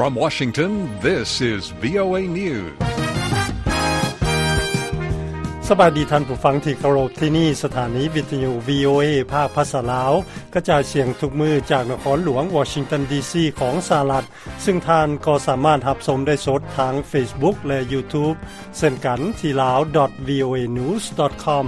From Washington, this is VOA News. ສະບາຍດີທ່ານຜູ້ຟັງທີ່ເຄົາລົບ, ທີ່ນີ້ສະຖານີວິທະຍຸ VOA ພາກພາສາລາວ ກະຈາຍສຽງທຸກມື້ຈາກນະຄອນຫຼວງວໍຊິງຕັນ ດີຊີ ຂອງສະຫະລັດ, ຊຶ່ງທ່ານກໍສາມາດຮັບຊົມໄດ້ສົດທາງ Facebook ແລະ YouTube ເຊັ່ນກັນທີ່ lao dot voanews dot com.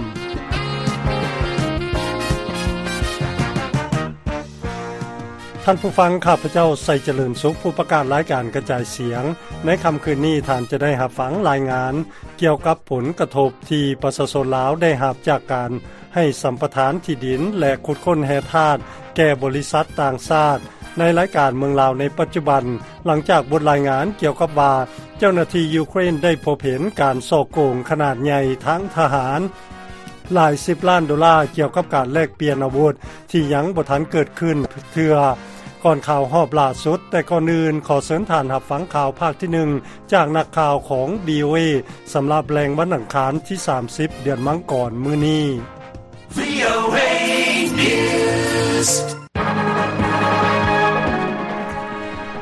ທ່ານຜູ້ຟັງ, ຂ້າພະເຈົ້າ ໄຊຈະເລີນສຸກ, ຜູ້ປະກາດລາຍການກະຈາຍສຽງ. ໃນຄ່ຳຄືນນີ້, ທ່ານຈະໄດ້ຮັບຟັງລາຍງານກ່ຽວກັບຜົນກະທົບທີ່ປະຊາຊົນລາວໄດ້ຮັບຈາກການໃຫ້ສຳປະທານທີ່ດິນ ແລະ ຂຸດຄົ້ນແຮ່ທາດແກ່ບໍລິສັດຕ່າງຊາດ ໃນລາຍການເມືອງລາວໃນປັດຈຸບັນ, ຫຼັງຈາກບົດລາຍງານກ່ຽວກັບວ່າ ເຈົ້າໜ້າທີ່ຢູເຄຣນໄດ້ພົບເຫັນການສໍ້ໂກງຂະໜາດໃຫຍ່ທາງທະຫານ ຫຼາຍສິບລ້ານໂດລາ ກ່ຽວກັບການແລກປ່ຽນອາວຸດທີ່ຍັງບໍ່ທັນເກີດຂຶ້ນເທື່ອ ກ່ອນຂ່າວຮອບລ່າສຸດ. ແຕ່ກ່ອນອື່ນ, ຂໍເຊີນທ່ານຮັບຟັງຂ່າວພາກທີໜຶ່ງ ຈາກນັກຂ່າວຂອງ VOA ສຳລັບແລງວັນອັງຄານທີສາມສິບ ເດືອນມັງກອນມື້ນີ້. VOA News.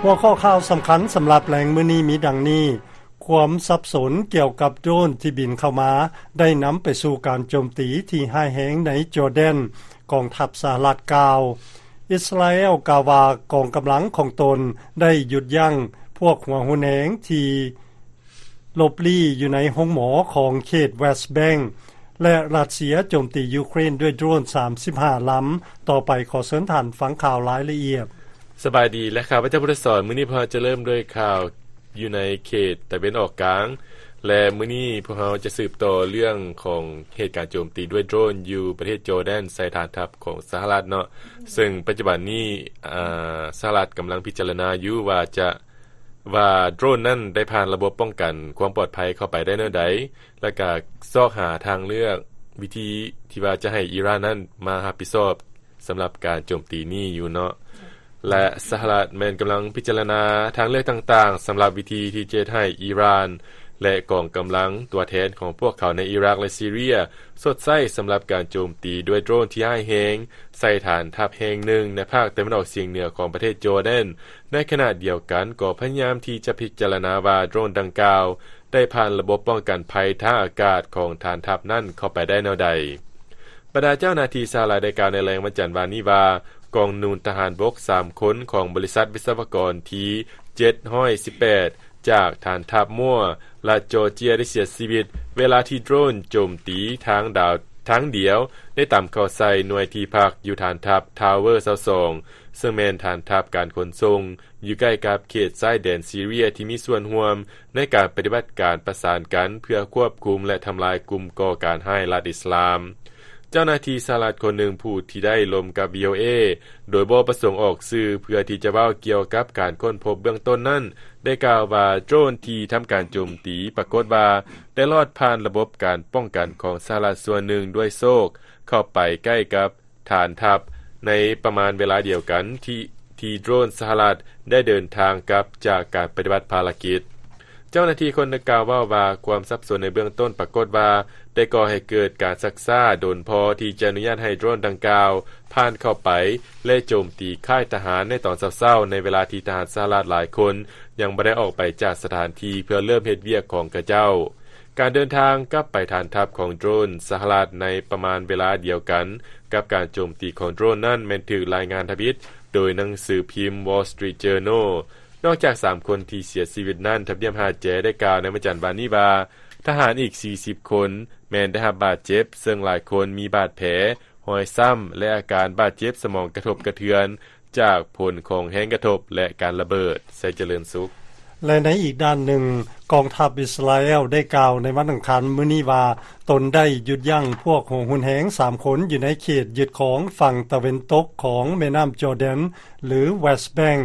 ຫົວຂໍ້ຂ່າວສຳຄັນສຳລັບແລງມື້ນີ້ມີດັ່ງນີ້: ຄວາມສັບສົນກ່ຽວກັບໂດຣນທີ່ບິນເຂົ້າມາ ໄດ້ນຳໄປສູ່ການໂຈມຕີທີ່ຮ້າຍແຮງໃນຈໍແດນ, ກອງທັບສະຫະລັດກ່າວ. ອິດສະຣາແອລກ່າວວ່າກອງກຳລັງຂອງຕົນໄດ້ຢຸດຢັ້ງພວກຫົວຮຸນແຮງທີ່ຫຼົບລີ້ຢູ່ໃນໂຮງໝໍຂອງເຂດເວສແບງ ແລະ ຣັດເຊຍໂຈມຕີຢູເຄຣນດ້ວຍໂດຣນສາມສິບຫ້າລຳ. ຕໍ່ໄປຂໍເຊີນທ່ານຟັງຂ່າວລາຍລະອຽດ. ສະບາຍດີ ແລະ ຂ້າພະເຈົ້າ ພຸດທະສອນ. ມື້ນີ້ພວກເຮົາຈະເລີ່ມດ້ວຍຂ່າວຢູ່ໃນເຂດຕາເວັນອອກກາງ ແລະ ມື້ນີ້ພວກເຮົາຈະສືບຕໍ່ເລື່ອງຂອງເຫດການໂຈມຕີດ້ວຍໂດຣນຢູ່ປະເທດຈໍແດນໃສ່ຖານທັບຂອງສະຫະລັດເນາະ, ເຊິ່ງປັດຈຸບັນນີ້ ອາ ສະຫະລັດກຳລັງພິຈາລະນາຢູ່ວ່າຈະ ວ່າໂດຣນນັ້ນໄດ້ຜ່ານລະບົບປ້ອງກັນຄວາມປອດໄພເຂົ້າໄປໄດ້ແນວໃດ, ແລະ ກະຊອກຫາທາງເລືອກວິທີທີ່ວ່າຈະໃຫ້ອີຣານນັ້ນມາຮັບຜິດຊອບສຳລັບການໂຈມຕີນີ້ຢູ່ເນາະ. ແລະ ສະຫະລັດແມ່ນກຳລັງພິຈາລະນາທາງເລືອກຕ່າງໆ ສຳລັບວິທີທີ່ຈະເຮັດໃຫ້ອີຣານ ແລະ ກອງກຳລັງຕົວແທນຂອງພວກເຂົາໃນອີຣັກ ແລະ ຊີເຣຍ ຊົດໃຊ້ສຳລັບການໂຈມຕີດ້ວຍໂດຣນທີ່ຮ້າຍແຮງໃສ່ຖານທັບແຫ່ງໜຶ່ງໃນພາກຕາເວັນອອກສຽງເໜືອຂອງປະເທດຈໍແດນ. ໃນຂະນະດຽວກັນກໍພະຍາຍາມທີ່ຈະພິຈາລະນາວ່າໂດຣນດັ່ງກ່າວໄດ້ຜ່ານລະບົບປ້ອງກັນໄພທາງອາກາດຂອງຖານທັບນັ້ນເຂົ້າໄປໄດ້ແນວໃດ. ບັນດາເຈົ້າໜ້າທີ່ສະຫະລັດໄດ້ກ່າວໃນແລງວັນຈັນວານນີ້ວ່າ ກອງໜູນທະຫານບົກສາມຄົນຂອງບໍລິສັດວິສະວະກອນທີເຈັດຮ້ອຍສິບແປດ ຈາກຖານທັບມົວ ລັດຈໍເຈຍ ໄດ້ເສຍຊີວິດ ເວລາທີ່ໂດຣນໂຈມຕີທາງດາວທາງດຽວ ໄດ້ຕຳເຂົ້າໃສ່ໜ່ວຍທີ່ພັກຢູ່ຖານທັບທາວເວີຊາວສອງ ເຊິ່ງແມ່ນຖານທັບການຂົນສົ່ງ ຢູ່ໃກ້ກັບເຂດຊາຍແດນຊີເຣຍທີ່ມີສ່ວນຮ່ວມໃນການປະຕິບັດການປະສານກັນ ເພື່ອຄວບຄຸມ ແລະ ທຳລາຍກຸ່ມກໍ່ການຮ້າຍລັດອິດສະລາມ. ເຈົ້າໜ້າທີ່ສະຫະລັດຄົນໜຶ່ງຜູ້ທີ່ໄດ້ລົມກັບ VOA ໂດຍບໍ່ປະສົງອອກຊື່ ເພື່ອທີ່ຈະເວົ້າກ່ຽວກັບການຄົ້ນພົບເບື້ອງຕົ້ນນັ້ນ ໄດ້ກ່າວວ່າໂດຣນທີ່ທຳການໂຈມຕີປາກົດວ່າໄດ້ລອດຜ່ານລະບົບການປ້ອງກັນຂອງສະຫະລັດສ່ວນໜຶ່ງດ້ວຍໂຊກເຂົ້າໄປໃກ້ກັບ ຖານທັບໃນປະມານເວລາດຽວກັນທີ່ ທີ່ໂດຣນສະຫະລັດໄດ້ເດີນທາງກັບຈາກການປະຕິບັດພາລະກິດ. ເຈົ້າໜ້າທີ່ຄົນດັ່ງກ່າວເວົ້າວ່າ ຄວາມສັບສົນໃນເບື້ອງຕົ້ນປາກົດວ່າ ໄດ້ກໍ່ໃຫ້ເກີດການຊັກຊ້າດົນພໍທີ່ຈະອະນຸຍາດໃຫ້ໂດຣນດັ່ງກ່າວຜ່ານເຂົ້າໄປ ແລະ ໂຈມຕີຄ້າຍທະຫານໃນຕອນເຊົ້າໆ ໃນເວລາທີ່ທະຫານສະຫະລັດຫຼາຍຄົນຍັງບໍ່ໄດ້ອອກໄປຈາກສະຖານທີ່ເພື່ອເລີ່ມເຮັດວຽກຂອງຂະເຈົ້າ. ການເດີນທາງກັບໄປຖານທັບຂອງໂດຣນສະຫະລັດໃນປະມານເວລາດຽວກັນກັບການໂຈມຕີຂອງໂດຣນນັ້ນ ແມ່ນຖືກລາຍງານທຳອິດໂດຍໜັງສືພິມ Wall Street Journal. ນອກຈາກສາມຄົນທີ່ເສຍຊີວິດນັ້ນ, ທຳນຽບຮາແຈໄດ້ກ່າວໃນວັນຈັນວານນີ້ວ່າ ທະຫານອີກສີ່ສິບຄົນແມ່ນໄດ້ຮັບບາດເຈັບ, ເຊິ່ງຫຼາຍຄົນມີບາດແຜ, ຮອຍຊ້ຳ ແລະ ອາການບາດເຈັບສະໝອງກະທົບກະເທືອນ ຈາກຜົນຂອງແຮງກະທົບ ແລະ ການລະເບີດ. ໄຊຈະເລີນສຸກ. ແລະ ໃນອີກດ້ານໜຶ່ງ, ກອງທັບອິດສະຣາແອລໄດ້ກ່າວໃນວັນອັງຄານມື້ນີ້ວ່າ ຕົນໄດ້ຢຸດຢັ້ງພວກຫົວຮຸນແຮງສາມຄົນຢູ່ໃນເຂດຍຶດຄອງຝັ່ງຕາເວັນຕົກຂອງແມ່ນ້ຳຈໍແດນ ຫຼື ເວສແບງ,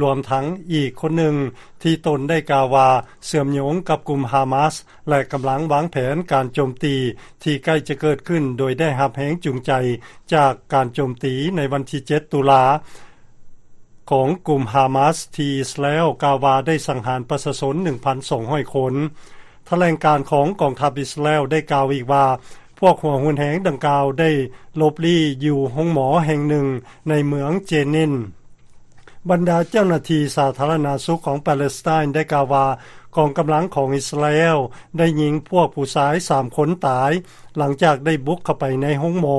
ລວມທັງອີກຄົນໜຶ່ງທີ່ຕົນໄດ້ກ່າວວ່າເຊື່ອມໂຍງກັບກຸ່ມຮາມາສ ແລະ ກຳລັງວາງແຜນການໂຈມຕີທີ່ໃກ້ຈະເກີດຂຶ້ນ ໂດຍໄດ້ຮັບແຮງຈູງໃຈຈາກການໂຈມຕີໃນວັນທີເຈັດ ຕຸລາ ຂອງກຸ່ມຮາມາສ ທີ່ອິດສະຣາແອລກ່າວວ່າໄດ້ສັງຫານປະຊາຊົນ ໜຶ່ງພັນສອງຮ້ອຍຄົນ. ຖະແຫຼງການຂອງກອງທັບອິດສະຣາແອລໄດ້ກ່າວອີກວ່າ ພວກຫົວຮຸນແຮງດັ່ງກ່າວໄດ້ຫຼົບລີ້ຢູ່ໂຮງໝໍແຫ່ງໜຶ່ງໃນເມືອງເຈນິນ. ບັນດາເຈົ້າໜ້າທີ່ສາທາລະນະສຸກຂອງປາເລສໄຕນ໌ໄດ້ກ່າວວ່າ ກອງກຳລັງຂອງອິດສະຣາແອລໄດ້ຍິງພວກຜູ້ຊາຍສາມຄົນຕາຍ ຫຼັງຈາກໄດ້ບຸກເຂົ້າໄປໃນໂຮງໝໍ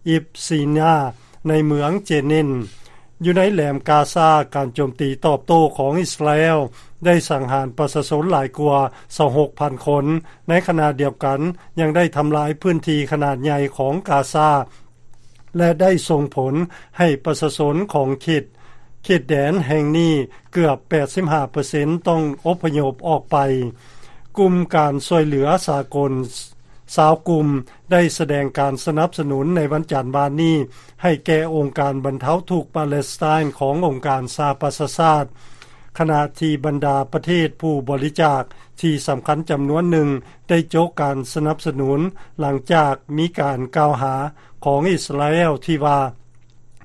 ອິບຊີນາ ໃນເມືອງເຈນິນ. ຢູ່ໃນແຫຼມກາຊາ, ການໂຈມຕີຕອບໂຕ້ຂອງອິດສະຣາແອລໄດ້ສັງຫານປະຊາຊົນຫຼາຍກວ່າຊາວຫົກພັນຄົນ, ໃນຂະນະດຽວກັນຍັງໄດ້ທຳລາຍພື້ນທີ່ຂະໜາດໃຫຍ່ຂອງກາຊາ ແລະ ໄດ້ສົ່ງຜົນໃຫ້ປະຊາຊົນຂອງເຂດ, ເຂດແດນແຫ່ງນີ້ເກືອບແປດສິບຫ້າເປີເຊັນຕ້ອງອົບພະຍົບອອກໄປ. ກຸ່ມການຊ່ວຍເຫຼືອສາກົນຊາວກຸ່ມໄດ້ສະແດງການສະໜັບສະໜູນໃນວັນຈັນວານນີ້ ໃຫ້ແກ່ອົງການບັນເທົາທຸກປາເລສໄຕນ໌ຂອງອົງການສະຫະປະຊາຊາດ, ຂະນະທີ່ບັນດາປະເທດຜູ້ບໍລິຈາກທີ່ສຳຄັນຈຳນວນໜຶ່ງ ໄດ້ໂຈະການສະໜັບສະໜູນ ຫຼັງຈາກມີການກ່າວຫາຂອງອິດສະຣາແອລທີ່ວ່າ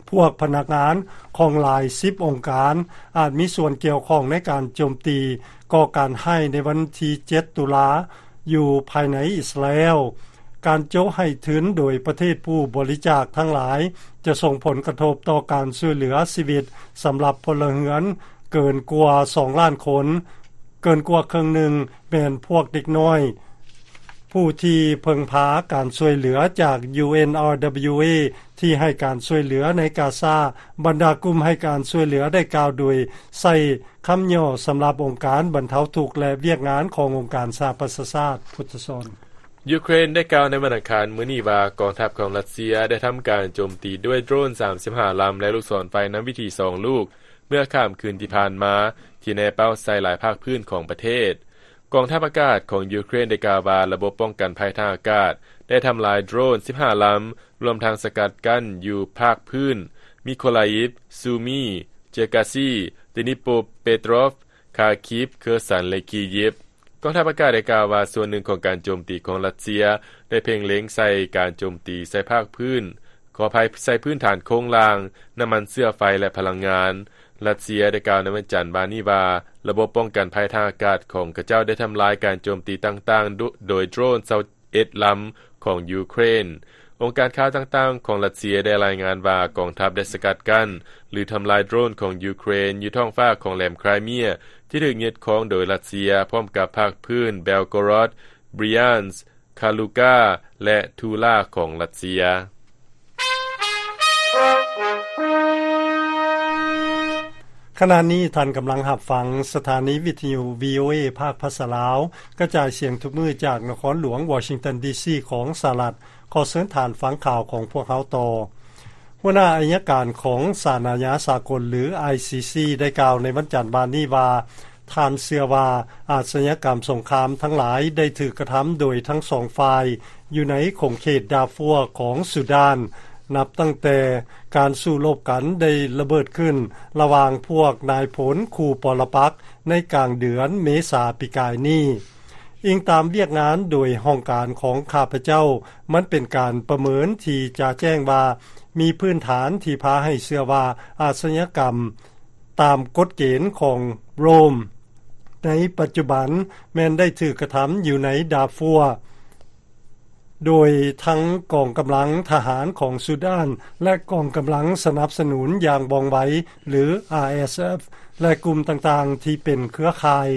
ພວກພະນັກງານຂອງຫຼາຍສິບອົງການອາດມີສ່ວນກ່ຽວຂ້ອງໃນການໂຈມຕີກໍ່ການຮ້າຍໃນວັນທີເຈັດຕຸລາ ຢູ່ພາຍໃນອິດສະຣາແອລ. ການໂຈະໃຫ້ທຶນໂດຍປະເທດຜູ້ບໍລິຈາກທັງຫຼາຍ ຈະສົ່ງຜົນກະທົບຕໍ່ການຊ່ວຍເຫຼືອຊີວິດສຳລັບພົນລະເຮືອນເກີນກວ່າສອງລ້ານຄົນ, ເກີນກວ່າເຄິ່ງໜຶ່ງແມ່ນພວກເດັກນ້ອຍ ຜູ້ທີ່ເພິ່ງພາການຊ່ວຍເຫຼືອຈາກ UNRWA ທີ່ໃຫ້ການຊ່ວຍເຫຼືອໃນກາຊາ. ບັນດາກຸ່ມໃຫ້ການຊ່ວຍເຫຼືອໄດ້ກ່າວໂດຍໃຊ້ຄຳຫຍໍ້ສຳລັບອົງການບັນເທົາທຸກ ແລະ ວຽກງານຂອງອົງການສະຫະປະຊາຊາດ. ພຸດທະສອນ. ຢູເຄຣນໄດ້ກ່າວໃນວັນອັງຄານມື້ນີ້ວ່າ ກອງທັບຂອງຣັດເຊຍໄດ້ທຳການໂຈມຕີດ້ວຍໂດຣນສາມສິບຫ້າລຳ ແລະ ລູກສອນໄຟນຳວິຖີສອງລູກ ເມື່ອຄ່ຳຄືນທີ່ຜ່ານມາ ທີ່ແນເປົ້າໃສ່ຫຼາຍພາກພື້ນຂອງປະເທດ. ກອງທັບອາກາດຂອງຢູເຄຣນໄດ້ກ່າວວ່າ ລະບົບປ້ອງກັນໄພທາງອາກາດໄດ້ທຳລາຍໂດຣນສິບຫ້າລຳ, ລວມທັງສະກັດກັ້ນຢູ່ພາກພື້ນມິໂຄລາອີບ, ຊູມີ, ເຈີກາຊີ, ເດນິໂປເປໂຕຣຟ, ຄາຄີບ, ເຄີຊັນ ແລະ ຄີຢິບ. ກອງທັບອາກາດໄດ້ກ່າວວ່າ ສ່ວນໜຶ່ງຂອງການໂຈມຕີຂອງຣັດເຊຍໄດ້ເພັ່ງເລັງໃສ່ການໂຈມຕີໃສ່ພາກພື້ນ, ຂໍອະໄພ, ໃສ່ພື້ນຖານໂຄງລ່າງ, ນ້ຳມັນເຊື້ອໄຟ ແລະ ພະລັງງານ. ຣັດເຊຍໄດ້ກ່າວໃນວັນຈັນວານນີ້ວ່າ ລະບົບປ້ອງກັນໄພທາງອາກາດຂອງຂະເຈົ້າໄດ້ທຳລາຍການໂຈມຕີຕ່າງໆໂດ, ໂດຍໂດຣນຊາວເອັດລຳຂອງຢູເຄຣນ. ອົງການຂ່າວຕ່າງໆຂອງຣັດເຊຍໄດ້ລາຍງານວ່າ ກອງທັບໄດ້ສະກັດກັ້ນ ຫຼື ທຳລາຍໂດຣນຂອງຢູເຄຣນຢູ່ທ້ອງຟ້າຂອງແຫຼມໄຄຣເມຍ ທີ່ຖືກຍຶດຄອງໂດຍຣັດເຊຍ ພ້ອມກັບພາກພື້ນເບລໂກຣອດ, ບຣຽນສ, ຄາລູກາ ແລະ ທູລາຂອງຣັດເຊຍ. ຂະນະນີ້ທ່ານກຳລັງຮັບຟັງສະຖານີວິທະຍຸ ວີໂອເອ ພາກພາສາລາວ ກະຈາຍສຽງທຸກມື້ຈາກນະຄອນຫຼວງວໍຊິງຕັນ ດີຊີ ຂອງສະຫະລັດ. ຂໍເຊີນທ່ານຟັງຂ່າວຂອງພວກເຮົາຕໍ່. ຫົວໜ້າໄອຍະການຂອງສານອາຍາສາກົນ ຫຼື ໄອຊີຊີ ໄດ້ກ່າວໃນວັນຈັນວານນີ້ວ່າ ທ່ານເຊື່ອວ່າອາຊະຍາກຳສົງຄາມທັງຫຼາຍໄດ້ຖືກກະທຳໂດຍທັງສອງຝ່າຍ ຢູ່ໃນຂົງເຂດດາຟວຂອງຊູດານ, ນັບຕັ້ງແຕ່ການສູ້ລົບກັນໄດ້ລະເບີດຂຶ້ນລະຫວ່າງພວກນາຍພົນຄູ່ປໍລະປັກໃນກາງເດືອນເມສາປີກາຍນີ້. ອີງຕາມວຽກງານໂດຍຫ້ອງການຂອງຂ້າພະເຈົ້າ, ມັນເປັນການປະເມີນທີ່ຈະແຈ້ງວ່າ ມີພື້ນຖານທີ່ພາໃຫ້ເຊື່ອວ່າອາຊະຍາກຳຕາມກົດເກນຂອງໂຣມໃນປັດຈຸບັນແມ່ນໄດ້ຖືກກະທຳຢູ່ໃນດາຟວ ໂດຍທັງກອງກຳລັງທະຫານຂອງຊູດານ ແລະ ກອງກຳລັງສະໜັບສະໜູນຢ່າງວ່ອງໄວ ຫຼື ອາເອສເອັຟ ແລະ ກຸ່ມຕ່າງໆທີ່ເປັນເຄືອຂ່າຍ.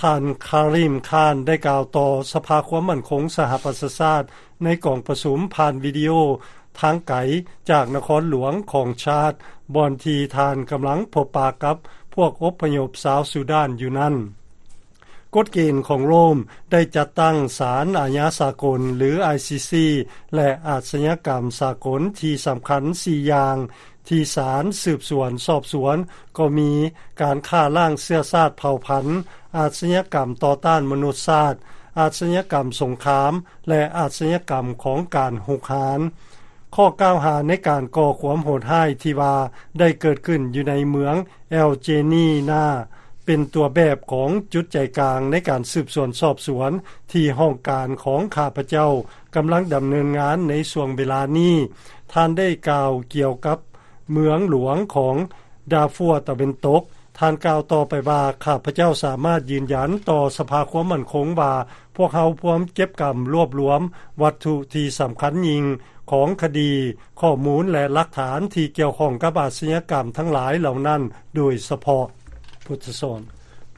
ທ່ານ ຄາຣີມ ຄານ ໄດ້ກ່າວຕໍ່ສະພາຄວາມໝັ້ນຄົງສະຫະປະຊາຊາດ ໃນກອງປະຊຸມຜ່ານວິດີໂອທາງໄກຈາກນະຄອນຫຼວງຂອງຊາດ ບ່ອນທີ່ທ່ານກຳລັງພົບປະກັບພວກອົບພະຍົບຊາວຊູດານຢູ່ນັ້ນ. ກົດເກນຂອງໂຣມໄດ້ຈັດຕັ້ງສານອາຍາສາກົນ ຫຼື ໄອຊີຊີ ແລະ ອາຊະຍາກຳສາກົນທີ່ສຳຄັນສີ່ຢ່າງ ທີ່ສານສືບສວນສອບສວນ ກໍມີການຂ້າລ້າງເຊື້ອຊາດເຜົ່າພັນ, ອາຊະຍາກຳຕໍ່ຕ້ານມະນຸດຊາດ, ອາຊະຍາກຳສົງຄາມ ແລະ ອາຊະຍາກຳຂອງການຮຸກຮານ. ຂໍ້ກ່າວຫາໃນການກໍ່ຄວາມໂຫດຮ້າຍທີ່ວ່າໄດ້ເກີດຂຶ້ນຢູ່ໃນເມືອງແອລເຈນີນາ ເປັນຕົວແບບຂອງຈຸດໃຈກາງໃນການສືບສວນສອບສວນທີ່ຫ້ອງການຂອງຂ້າພະເຈົ້າກຳລັງດຳເນີນງານໃນຊ່ວງເວລານີ້. ທ່ານໄດ້ກ່າວກ່ຽວກັບເມືອງຫຼວງຂອງດາຟວຕາເວັນຕົກ. ທ່ານກ່າວຕໍ່ໄປວ່າ, ຂ້າພະເຈົ້າສາມາດຢືນຢັນຕໍ່ສະພາຄວາມໝັ້ນຄົງວ່າ ພວກເຮົາພວມເກັບກຳລວບລວມວັດຖຸທີ່ສຳຄັນຍິ່ງ ຂອງຄະດີ, ຂໍ້ມູນ ແລະ ຫຼັກຖານທີ່ກ່ຽວຂ້ອງກັບອາຊະຍາກຳທັງຫຼາຍເຫຼົ່ານັ້ນໂດຍສະເພາະ.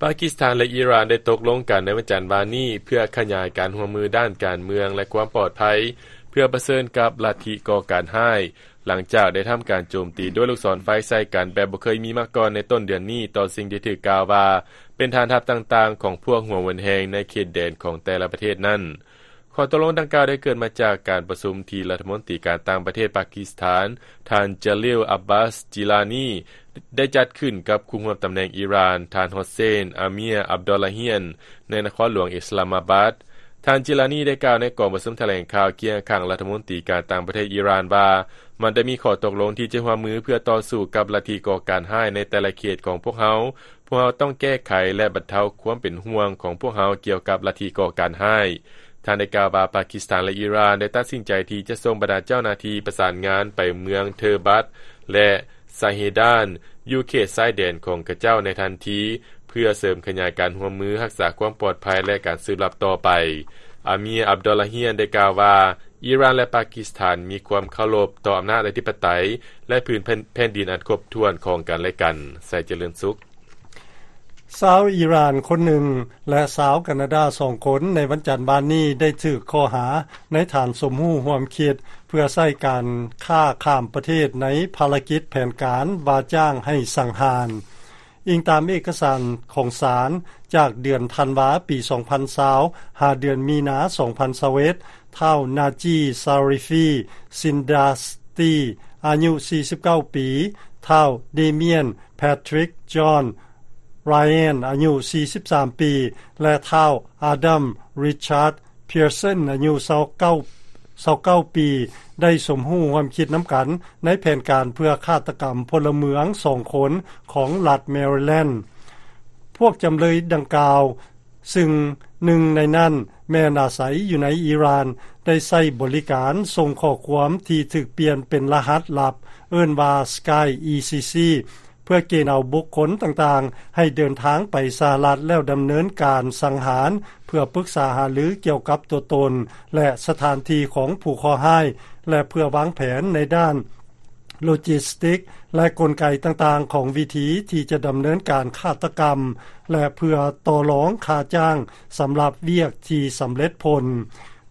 ປາກິສຖານ ແລະ ອີຣານ ໄດ້ຕົກລົງກັນໃນວັນຈັນວານນີ້ ເພື່ອຂະຫຍາຍການຮ່ວມມືດ້ານການເມືອງ ແລະ ຄວາມປອດໄພ ເພື່ອປະເຊີນກັບລັດທິກໍ່ການຮ້າຍ, ຫຼັງຈາກໄດ້ທຳການໂຈມຕີດ້ວຍລູກສອນໄຟໃສ່ກັນແບບບໍ່ເຄີຍມີມາກ່ອນໃນຕົ້ນເດືອນນີ້ ຕໍ່ສິ່ງທີ່ຖືກກ່າວວ່າເປັນຖານທັບຕ່າງໆຂອງພວກຫົວເຫວີນແຮງໃນເຂດແດນຂອງແຕ່ລະປະເທດນັ້ນ. ຂໍ້ຕົກລົງດັ່ງກ່າວໄດ້ເກີດມາຈາກການປະຊຸມທີ່ລັດຖະມົນຕີການຕ່າງປະເທດປາກິສຖານ ທ່ານ ຈາລິລ ອາບາສ ຈີລານີ ໄດ້ຈັດຂຶ້ນກັບຄູ່ຮ່ວມຕຳແໜ່ງອີຣານ ທ່ານ ໂຮເຊນ ອາເມຍ ອາບດໍລາຮຽນ ໃນນະຄອນຫຼວງອິສລາມາບາດ. ທ່ານ ຈີລານີ ໄດ້ກ່າວໃນກອງປະຊຸມຖະແຫຼງຂ່າວຄຽງຂ້າງລັດຖະມົນຕີການຕ່າງປະເທດອີຣານວ່າ ມັນໄດ້ມີຂໍ້ຕົກລົງທີ່ຈະຮ່ວມມືເພື່ອຕໍ່ສູ້ກັບລັດທິກໍ່ການຮ້າຍໃນແຕ່ລະເຂດຂອງພວກເຮົາ. ພວກເຮົາຕ້ອງແກ້ໄຂ ແລະ ບັນເທົາຄວາມເປັນຫ່ວງຂອງພວກເຮົາກ່ຽວກັບລັດທິກໍ່ການຮ້າຍ. ທ່ານໄດ້ກ່າວວ່າ ປາກິສຖານ ແລະ ອີຣານ ໄດ້ຕັດສິນໃຈທີ່ຈະສົ່ງບັນດາເຈົ້າໜ້າທີ່ປະສານງານໄປເມືອງເທີບັດ ແລະ ຊາເຮດານ ຢູ່ເຂດຊາຍແດນຂອງຂະເຈົ້າໃນທັນທີ ເພື່ອເສີມຂະຫຍາຍການຮ່ວມມືຮັກສາຄວາມປອດໄພ ແລະ ການສືບລັບຕໍ່ໄປ. ອາເມຍ ອາບດໍລາຮຽນ ໄດ້ກ່າວວ່າ ອີຣານ ແລະ ປາກິສຖານ ມີຄວາມເຄົາລົບຕໍ່ອຳນາດອະທິປະໄຕ ແລະ ພື້ນແຜ່ນ ແຜ່ນດິນອັນຄົບຖ້ວນຂອງກັນ ແລະ ກັນ. ໄຊຈະເລີນສຸກ. ຊາວອີຣານຄົນໜຶ່ງ ແລະ ຊາວການາດາສອງຄົນ ໃນວັນຈັນວານນີ້ໄດ້ຖືກຂໍ້ຫາໃນຖານສົມຮູ້ຮ່ວມຄິດ ເພື່ອໃຊ້ການຄ້າຂ້າມປະເທດໃນພາລະກິດແຜນການວ່າຈ້າງໃຫ້ສັງຫານ. ອີງຕາມເອກະສານຂອງສານ ຈາກເດືອນທັນວາປີສອງພັນຊາວ ຫາເດືອນມີນາສອງພັນຊາວເອັດ ທ້າວ ນາຈີ ຊາຣິຟີ ຊິນດາສຕີ ອາຍຸສີ່ສິບເກົ້າປີ, ທ້າວ ເດມຽນ ແພທຣິກ ຈອນ ຣາແອນ ອາຍຸສີ່ສິບສາມປີ ແລະ ທ້າວ ອາດັມ ຣິຊາດ ເພຍເຊັນ ອາຍຸຊາວເກົ້າ ຊາວເກົ້າປີ ໄດ້ສົມຮູ້ຮ່ວມຄິດນຳກັນໃນແຜນການເພື່ອຄາດຕະກຳພົນລະເມືອງສອງຄົນຂອງລັດແມຣິແລນ. ພວກຈຳເລີຍດັ່ງກ່າວ ຊຶ່ງໜຶ່ງໃນນັ້ນແມ່ນອາໄສຢູ່ໃນອີຣານ ໄດ້ໃຊ້ບໍລິການສົ່ງຂໍ້ຄວາມທີ່ຖືກປ່ຽນເປັນລະຫັດລັບ ເອີ້ນວ່າ Sky E C C ເພື່ອເກນເອົາບຸກຄົນຕ່າງໆໃຫ້ເດີນທາງໄປສະຫະລັດ ແລ້ວດຳເນີນການສັງຫານ ເພື່ອປຶກສາຫາລືກ່ຽວກັບຕົວຕົນ ແລະ ສະຖານທີ່ຂອງຜູ້ເຄາະຮ້າຍ ແລະ ເພື່ອວາງແຜນໃນດ້ານໂລຈິສຕິກ ແລະ ກົນໄກຕ່າງໆຂອງວິທີທີ່ຈະດຳເນີນການຄາດຕະກຳ ແລະ ເພື່ອຕໍ່ລອງຄ່າຈ້າງສຳລັບວຽກທີ່ສຳເລັດຜົນ.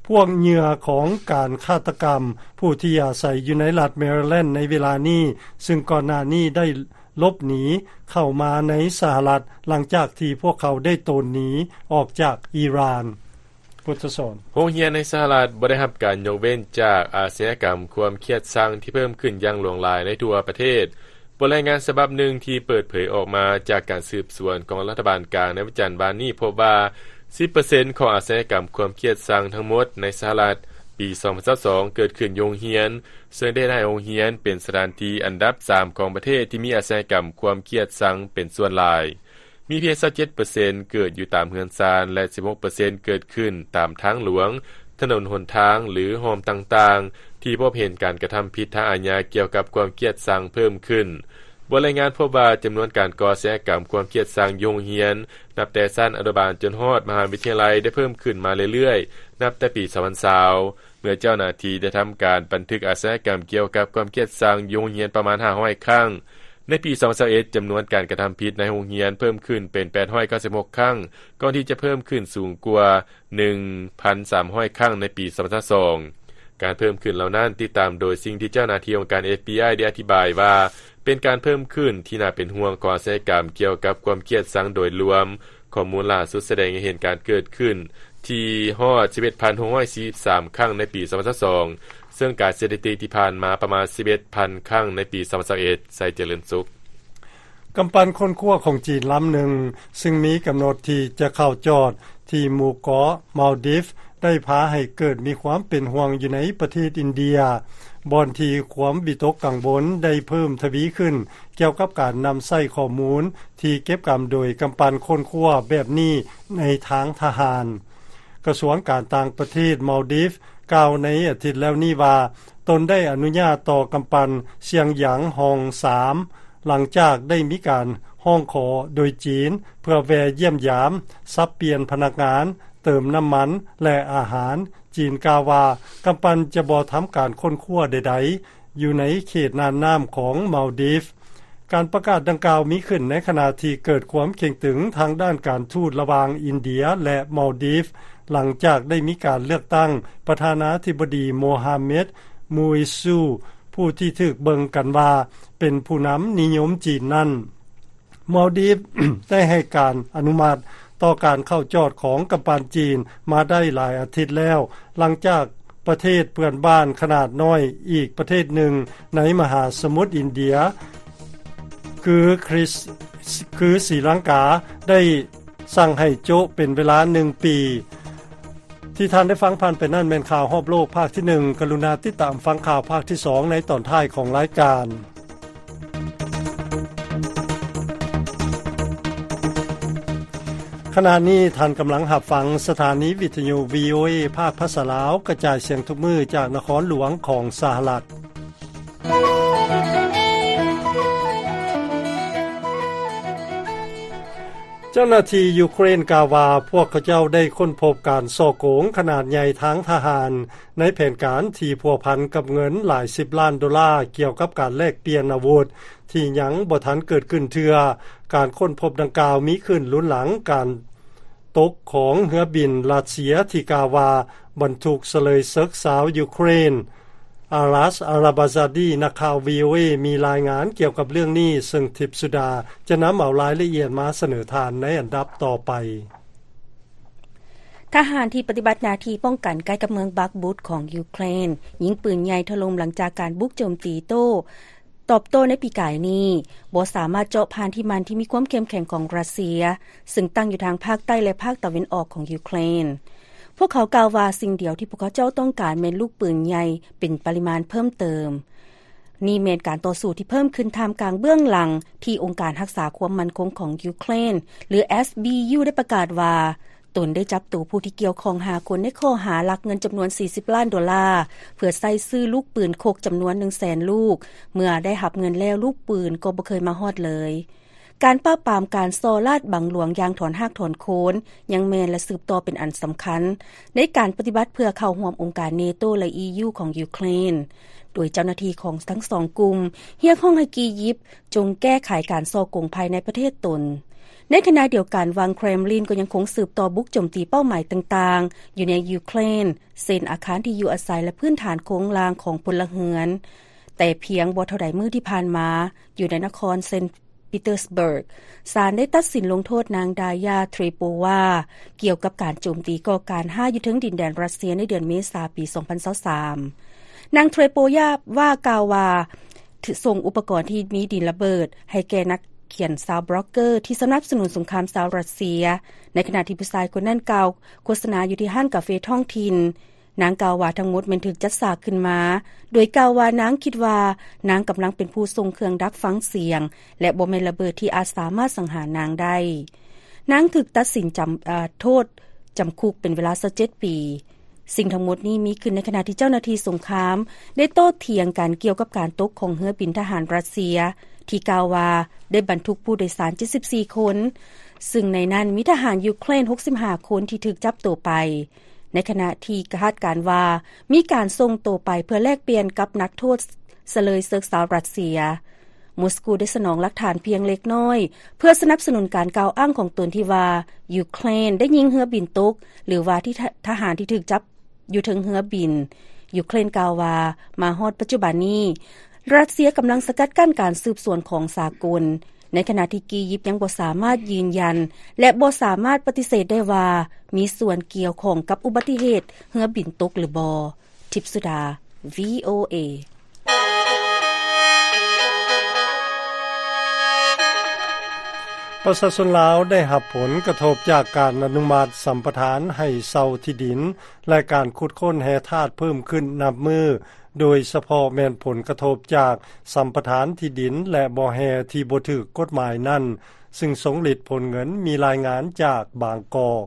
ພວກເຫຍື່ອຂອງການຄາດຕະກຳ ຜູ້ທີ່ອາໄສຢູ່ໃນລັດແມຣິແລນໃນເວລານີ້, ຊຶ່ງກ່ອນໜ້ານີ້ໄດ້ຫຼົບໜີເຂົ້າມາໃນສະຫະລັດ ຫຼັງຈາກທີ່ພວກເຂົາໄດ້ໂຕນໜີອອກຈາກອີຣານ. ໂຮງຮຽນໃນສະຫະລັດບໍ່ໄດ້ຮັບການຍົກເວັ້ນຈາກອາຊະຍາກຳຄວາມຄຽດຊັງທີ່ເພີ່ມຂຶ້ນຢ່າງຫຼວງຫຼາຍໃນທົ່ວປະເທດ. ບົດລາຍງານສະບັບໜຶ່ງທີ່ເປີດເຜີຍອອກມາຈາກການສືບສວນຂອງລັດຖະບານກາງໃນວັນຈັນວານນີ້ພົບວ່າ ສິບເປີເຊັນຂອງອາຊະຍາກຳຄວາມຄຽດຊັງທັງໝົດໃນສະຫະລັດປີສອງພັນຊາວສອງເກີດຂຶ້ນຢູ່ໂຮງຮຽນ, ເຊິ່ງໄດ້ເຮັດໃຫ້ໂຮງຮຽນເປັນສະຖານທີ່ອັນດັບສາມຂອງປະເທດທີ່ມີອາຊະຍາກຳຄວາມຄຽດຊັງເປັນສ່ວນຫຼາຍ. ມີພຽງຊາວເຈັດເປີເຊັນເກີດຢູ່ຕາມເຮືອນຊານ ແລະ ສິບຫົກເປີເຊັນເກີດຂຶ້ນຕາມທາງຫຼວງ, ຖະໜົນຫົນທາງ ຫຼື ຮ່ອມຕ່າງໆ ທີ່ພົບເຫັນການກະທຳຜິດທາງອາຍາກ່ຽວກັບຄວາມຄຽດຊັງເພີ່ມຂຶ້ນ. ບົດລາຍງານພົບວ່າຈຳນວນການກໍ່ອາຊະຍາກຳຄວາມຄຽດຊັງຢູ່ໂຮງຮຽນ ນັບແຕ່ຊັ້ນອະນຸບານຈົນຮອດມະຫາວິທະຍາໄລໄດ້ເພີ່ມຂຶ້ນມາເລື້ອຍໆ ນັບແຕ່ປີສອງພັນຊາວ ເມື່ອເຈົ້າໜ້າທີ່ໄດ້ທຳການບັນທຶກອາຊະຍາກຳກ່ຽວກັບຄວາມຄຽດຊັງຢູ່ໂຮງຮຽນປະມານຫ້າຮ້ອຍຄັ້ງ. ໃນປີສອງພັນຊາວເອັດ ຈຳນວນການກະທຳຜິດໃນໂຮງຮຽນເພີ່ມຂຶ້ນເປັນແປດຮ້ອຍເກົ້າສິບຫົກຄັ້ງ, ກ່ອນທີ່ຈະເພີ່ມຂຶ້ນສູງກວ່າໜຶ່ງພັນສາມຮ້ອຍຄັ້ງໃນປີສອງພັນຊາວສອງ. ການເພີ່ມຂຶ້ນເຫຼົ່ານັ້ນຕິດຕາມໂດຍສິ່ງທີ່ເຈົ້າໜ້າທີ່ອົງການ FBI ໄດ້ອະທິບາຍວ່າ ເປັນການເພີ່ມຂຶ້ນທີ່ໜ້າເປັນຫ່ວງຂອງອາຊະຍາກຳກ່ຽວກັບຄວາມຄຽດຊັງໂດຍລວມ. ຂໍ້ມູນລ່າສຸດສະແດງໃຫ້ເຫັນການເກີດຂຶ້ນທີ່ຮອດສິບເອັດພັນຫົກຮ້ອຍສີ່ສິບສາມຄັ້ງໃນປີສອງພັນຊາວສອງ ເຊິ່ງການສະຖິຕິທີ່ຜ່ານມາປະມານສິບເອັດພັນຄັ້ງໃນປີສອງພັນຊາວເອັດ. ໄຊຈະເລີນສຸກ. ກຳປັ່ນຄົ້ນຄວ້າຂອງຈີນລຳໜຶ່ງ ຊຶ່ງມີກຳນົດທີ່ຈະເຂົ້າຈອດທີ່ໝູ່ເກາະມາລດີຟ ໄດ້ພາໃຫ້ເກີດມີຄວາມເປັນຫ່ວງຢູ່ໃນປະເທດອິນເດຍ, ບ່ອນທີ່ຄວາມວິຕົກກັງວົນໄດ້ເພີ່ມທະວີຂຶ້ນ ກ່ຽວກັບການນຳໃຊ້ຂໍ້ມູນທີ່ເກັບກຳໂດຍກຳປັ່ນຄົ້ນຄວ້າແບບນີ້ໃນທາງທະຫານ. ກະຊວງການຕ່າງປະເທດມາລດີຟກ່າວໃນອາທິດແລ້ວນີ້ວ່າ ຕົນໄດ້ອະນຸຍາດຕໍ່ກຳປັ່ນຊຽງຢາງຮອງສາມ ຫຼັງຈາກໄດ້ມີການຮ້ອງຂໍໂດຍຈີນ ເພື່ອແວ່ຢ້ຽມຢາມ, ສັບປ່ຽນພະນັກງານ, ເຕີມນ້ຳມັນ ແລະ ອາຫານ ຈີນກ່າວວ່າ ກຳປັ່ນຈະບໍ່ທຳການຄົ້ນຄວ້າໃດໆ ຢູ່ໃນເຂດນ່ານນ້ຳຂອງມາລດີຟ. ການປະກາດດັ່ງກ່າວມີຂຶ້ນໃນຂະນະທີ່ເກີດຄວາມເຄັ່ງຕຶງທາງດ້ານການທູດລະຫວ່າງອິນເດຍ ແລະ ມາລດີຟ ຫຼັງຈາກໄດ້ມີການເລືອກຕັ້ງປະທານາທິບໍດີ ໂມຮາເມັດ ມູອິຊູ ຜູ້ທີ່ຖືກເບິ່ງກັນວ່າເປັນຜູ້ນຳນິຍົມຈີນນັ້ນ. ມາລດີຟ ໄດ້ໃຫ້ການອະນຸມັດຕໍ່ການເຂົ້າຈອດຂອງກຳປັ່ນຈີນມາໄດ້ຫຼາຍອາທິດແລ້ວ, ຫຼັງຈາກປະເທດເພື່ອນບ້ານຂະໜາດນ້ອຍອີກປະເທດໜຶ່ງໃນມະຫາສະໝຸດອິນເດຍ ຄືຄຣິສ ຄືສີລັງກາ ໄດ້ສັ່ງໃຫ້ໂຈະເປັນເວລາໜຶ່ງປີ. ທີ່ທ່ານໄດ້ຟັງຜ່ານໄປນັ້ນແມ່ນຂ່າວຮອບໂລກພາກທີໜຶ່ງ. ກະລຸນາຕິດຕາມຟັງຂ່າວພາກທີສອງໃນຕອນທ້າຍຂອງລາຍການ. ຂະນະນີ້ທ່ານກຳລັງຮັບຟັງສະຖານີວິທະຍຸ ວີໂອເອ ພາກພາສາລາວ ກະຈາຍສຽງທຸກມື້ຈາກນະຄອນຫຼວງຂອງສະຫະລັດ. ເຈົ້າໜ້າທີ່ຢູເຄຣນກ່າວວ່າ ພວກເຂົາເຈົ້າໄດ້ຄົ້ນພົບການສໍ້ໂກງຂະໜາດໃຫຍ່ທາງທະຫານ ໃນແຜນການທີ່ພົວພັນກັບເງິນຫຼາຍສິບລ້ານໂດລາ ກ່ຽວກັບການແລກປ່ຽນອາວຸດ ທີ່ຍັງບໍ່ທັນເກີດຂຶ້ນເທື່ອ. ການຄົ້ນພົບດັ່ງກ່າວມີຂຶ້ນລຸນຫຼັງການຕົກຂອງເຮືອບິນຣັດເຊຍທີ່ກ່າວວ່າບັນທຸກສະເລີຍເສິກຊາວຢູເຄຣນ. ອາລັດ ອາລາບາຊາດີ ນັກຂ່າວ ວີໂອເອ ມີລາຍງານກ່ຽວກັບເລື່ອງນີ້, ເຊິ່ງທິບສຸດາຈະນຳເອົາລາຍລະອຽດມາສະເໜີທ່ານໃນອັນດັບຕໍ່ໄປ. ທະຫານທີ່ປະຕິບັດໜ້າທີ່ປ້ອງກັນໃກ້ກັບເມືອງບັກບຸດຂອງຢູເຄຣນ ຍິງປືນໃຫຍ່ຖະຫຼົ່ມຫຼັງຈາກການບຸກໂຈມຕີໂຕ້ ຕອບໂຕ້ໃນປີກາຍນີ້ ບໍ່ສາມາດເຈາະຜ່ານທີ່ໝັ້ນທີ່ມີຄວາມເຂັ້ມແຂງຂອງຣັດເຊຍ ເຊິ່ງຕັ້ງຢູ່ທາງພາກໃຕ້ ແລະ ພາກຕາເວັນອອກຂອງຢູເຄຣນ. ພວກເຂົາກ່າວວ່າ ສິ່ງດຽວທີ່ພວກເຂົາເຈົ້າຕ້ອງການແມ່ນລູກປືນໃຫຍ່ເປັນປະລິມານເພີ່ມເຕີມ. ນີ້ແມ່ນການຕໍ່ສູ້ທີ່ເພີ່ມຂຶ້ນທ່າມກາງເບື້ອງຫຼັງທີ່ອົງການຮັກສາຄວາມໝັ້ນຄົງຂອງຢູເຄຣນ ຫຼື ເອສບີຢູ ໄດ້ປະກາດວ່າ ຕົນໄດ້ຈັບໂຕຜູ້ທີ່ກ່ຽວຂ້ອງຫ້າຄົນໃນຂໍ້ຫາລັກເງິນຈຳນວນສີ່ສິບລ້ານໂດລາ ເພື່ອໃຊ້ຊື້ລູກປືນຄົກຈຳນວນໜຶ່ງແສນລູກ. ເມື່ອໄດ້ຮັບເງິນແລ້ວ ລູກປືນກໍບໍ່ເຄີຍມາຮອດເລີຍ. ການປາບປາມການສໍ້ລາດບັງຫຼວງຢ່າງຖອນຮາກຖອນໂຄນ ຍັງແມ່ນ ແລະ ສືບຕໍ່ເປັນອັນສຳຄັນ ໃນການປະຕິບັດເພື່ອເຂົ້າຮ່ວມອົງການເນໂຕ ແລະ ອີຢູ ຂອງຢູເຄຣນ, ໂດຍເຈົ້າໜ້າທີ່ຂອງທັງສອງກຸ່ມຮຽກຮ້ອງໃຫ້ກີຢິບ ຈົ່ງແກ້ໄຂການສໍ້ໂກງພາຍໃນປະເທດຕົນ. ໃນຂະນະດຽວກັນ, ວັງເຄຣມລິນກໍຍັງຄົງສືບຕໍ່ບຸກໂຈມຕີເປົ້າໝາຍຕ່າງໆຢູ່ໃນຢູເຄຣນ, ເຊັ່ນ ອາຄານທີ່ຢູ່ອາໄສ ແລະ ພື້ນຖານໂຄງລ່າງຂອງພົນລະເຮືອນ. ແຕ່ພຽງບໍ່ເທົ່າໃດມື້ທີ່ຜ່ານມາ, ຢູ່ໃນນະຄອນເຊນ ປີເຕີສເບີກ, ສານໄດ້ຕັດສິນລົງໂທດນາງ ດາຢາ ເທຣໂປວາ ກ່ຽວກັບການໂຈມຕີກໍ່ການຮ້າຍຢູ່ເທິງດິນແດນຣັດເຊຍໃນເດືອນເມສາປີສອງພັນຊາວສາມ. ນາງ ເທຣໂປວາ ກ່າວວ່າ ສົ່ງອຸປະກອນທີ່ມີດິນລະເບີດໃຫ້ແກ່ນັກຂຽນຊາວບລັອກເກີທີ່ສະໜັບສະໜູນສົງຄາມຊາວຣັດເຊຍ, ໃນຂະນະທີ່ຜູ້ຊາຍຄົນນັ້ນກ່າວໂຄສະນາຢູ່ທີ່ຮ້ານກາເຟທ້ອງຖິ່ນ. ນາງກ່າວວ່າທັງໝົດແມ່ນຖືກຈັດສາກຂຶ້ນມາ, ໂດຍກ່າວວ່ານາງຄິດວ່ານາງກຳລັງເປັນຜູ້ສົ່ງເຄື່ອງດັກຟັງສຽງ ແລະ ບໍ່ແມ່ນລະເບີດທີ່ອາດສາມາດສັງຫານນາງໄດ້. ນາງຖືກຕັດສິນຈຳ ເອີ ໂທດຈຳຄຸກເປັນເວລາຊາວເຈັດປີ. ສິ່ງທັງໝົດນີ້ມີຂຶ້ນໃນຂະນະທີ່ເຈົ້າໜ້າທີ່ສົງຄາມໄດ້ໂຕ້ຖຽງກັນກ່ຽວກັບການຕົກຂອງເຮືອບິນທະຫານຣັດເຊຍ ທີ່ກ່າວວ່າໄດ້ບັນທຸກຜູ້ໂດຍສານເຈັດສິບສີ່ຄົນ, ຊຶ່ງໃນນັ້ນມີທະຫານຢູເຄຣນຫົກສິບຫ້າຄົນທີ່ຖືກຈັບໂຕໄປ. ໃນຂະນະທີ່ຄາດການວ່າມີການສົ່ງໂຕໄປເພື່ອແລກປ່ຽນກັບນັກໂທດສະເລີຍເສິກຊາວຣັດເຊຍ, ມົສກູໄດ້ສະໜອງຫຼັກຖານພຽງເລັກນ້ອຍ ເພື່ອສະໜັບສະໜູນການກ່າວອ້າງຂອງຕົນທີ່ວ່າ ຢູເຄຣນໄດ້ຍິງເຮືອບິນຕົກ ຫຼືວ່າທີ່ທະ ທະຫານທີ່ຖືກຈັບຢູ່ເທິງເຮືອບິນ. ຢູເຄຣນກ່າວວ່າ ມາຮອດປັດຈຸບັນນີ້ ຣັດເຊຍກຳລັງສະກັດກັ້ນການສືບສວນຂອງສາກົນ, ໃນຂະນະທີ່ກີຢິບຍັງບໍ່ສາມາດຢືນຢັນ ແລະ ບໍ່ສາມາດປະຕິເສດໄດ້ວ່າມີສ່ວນກ່ຽວຂ້ອງກັບອຸບັດຕິເຫດເຮືອບິນຕົກຫຼືບໍ່. ທິບສຸດາ ວີໂອເອ. ປະຊາຊົນລາວໄດ້ຮັບຜົນກະທົບຈາກການອະນຸມັດສຳປະທານໃຫ້ເຊົ່າທີ່ດິນ ແລະ ການຂຸດຄົ້ນແຮ່ທາດເພີ່ມຂຶ້ນນັບມື້, ໂດຍສະເພາະແມ່ນຜົນກະທົບຈາກສຳປະທານທີ່ດິນ ແລະ ບໍ່ແຮ່ທີ່ບໍ່ຖືກກົດໝາຍນັ້ນ, ຊຶ່ງສົງລິດຜົນເງິນ. ມີລາຍງານຈາກບາງກອກ.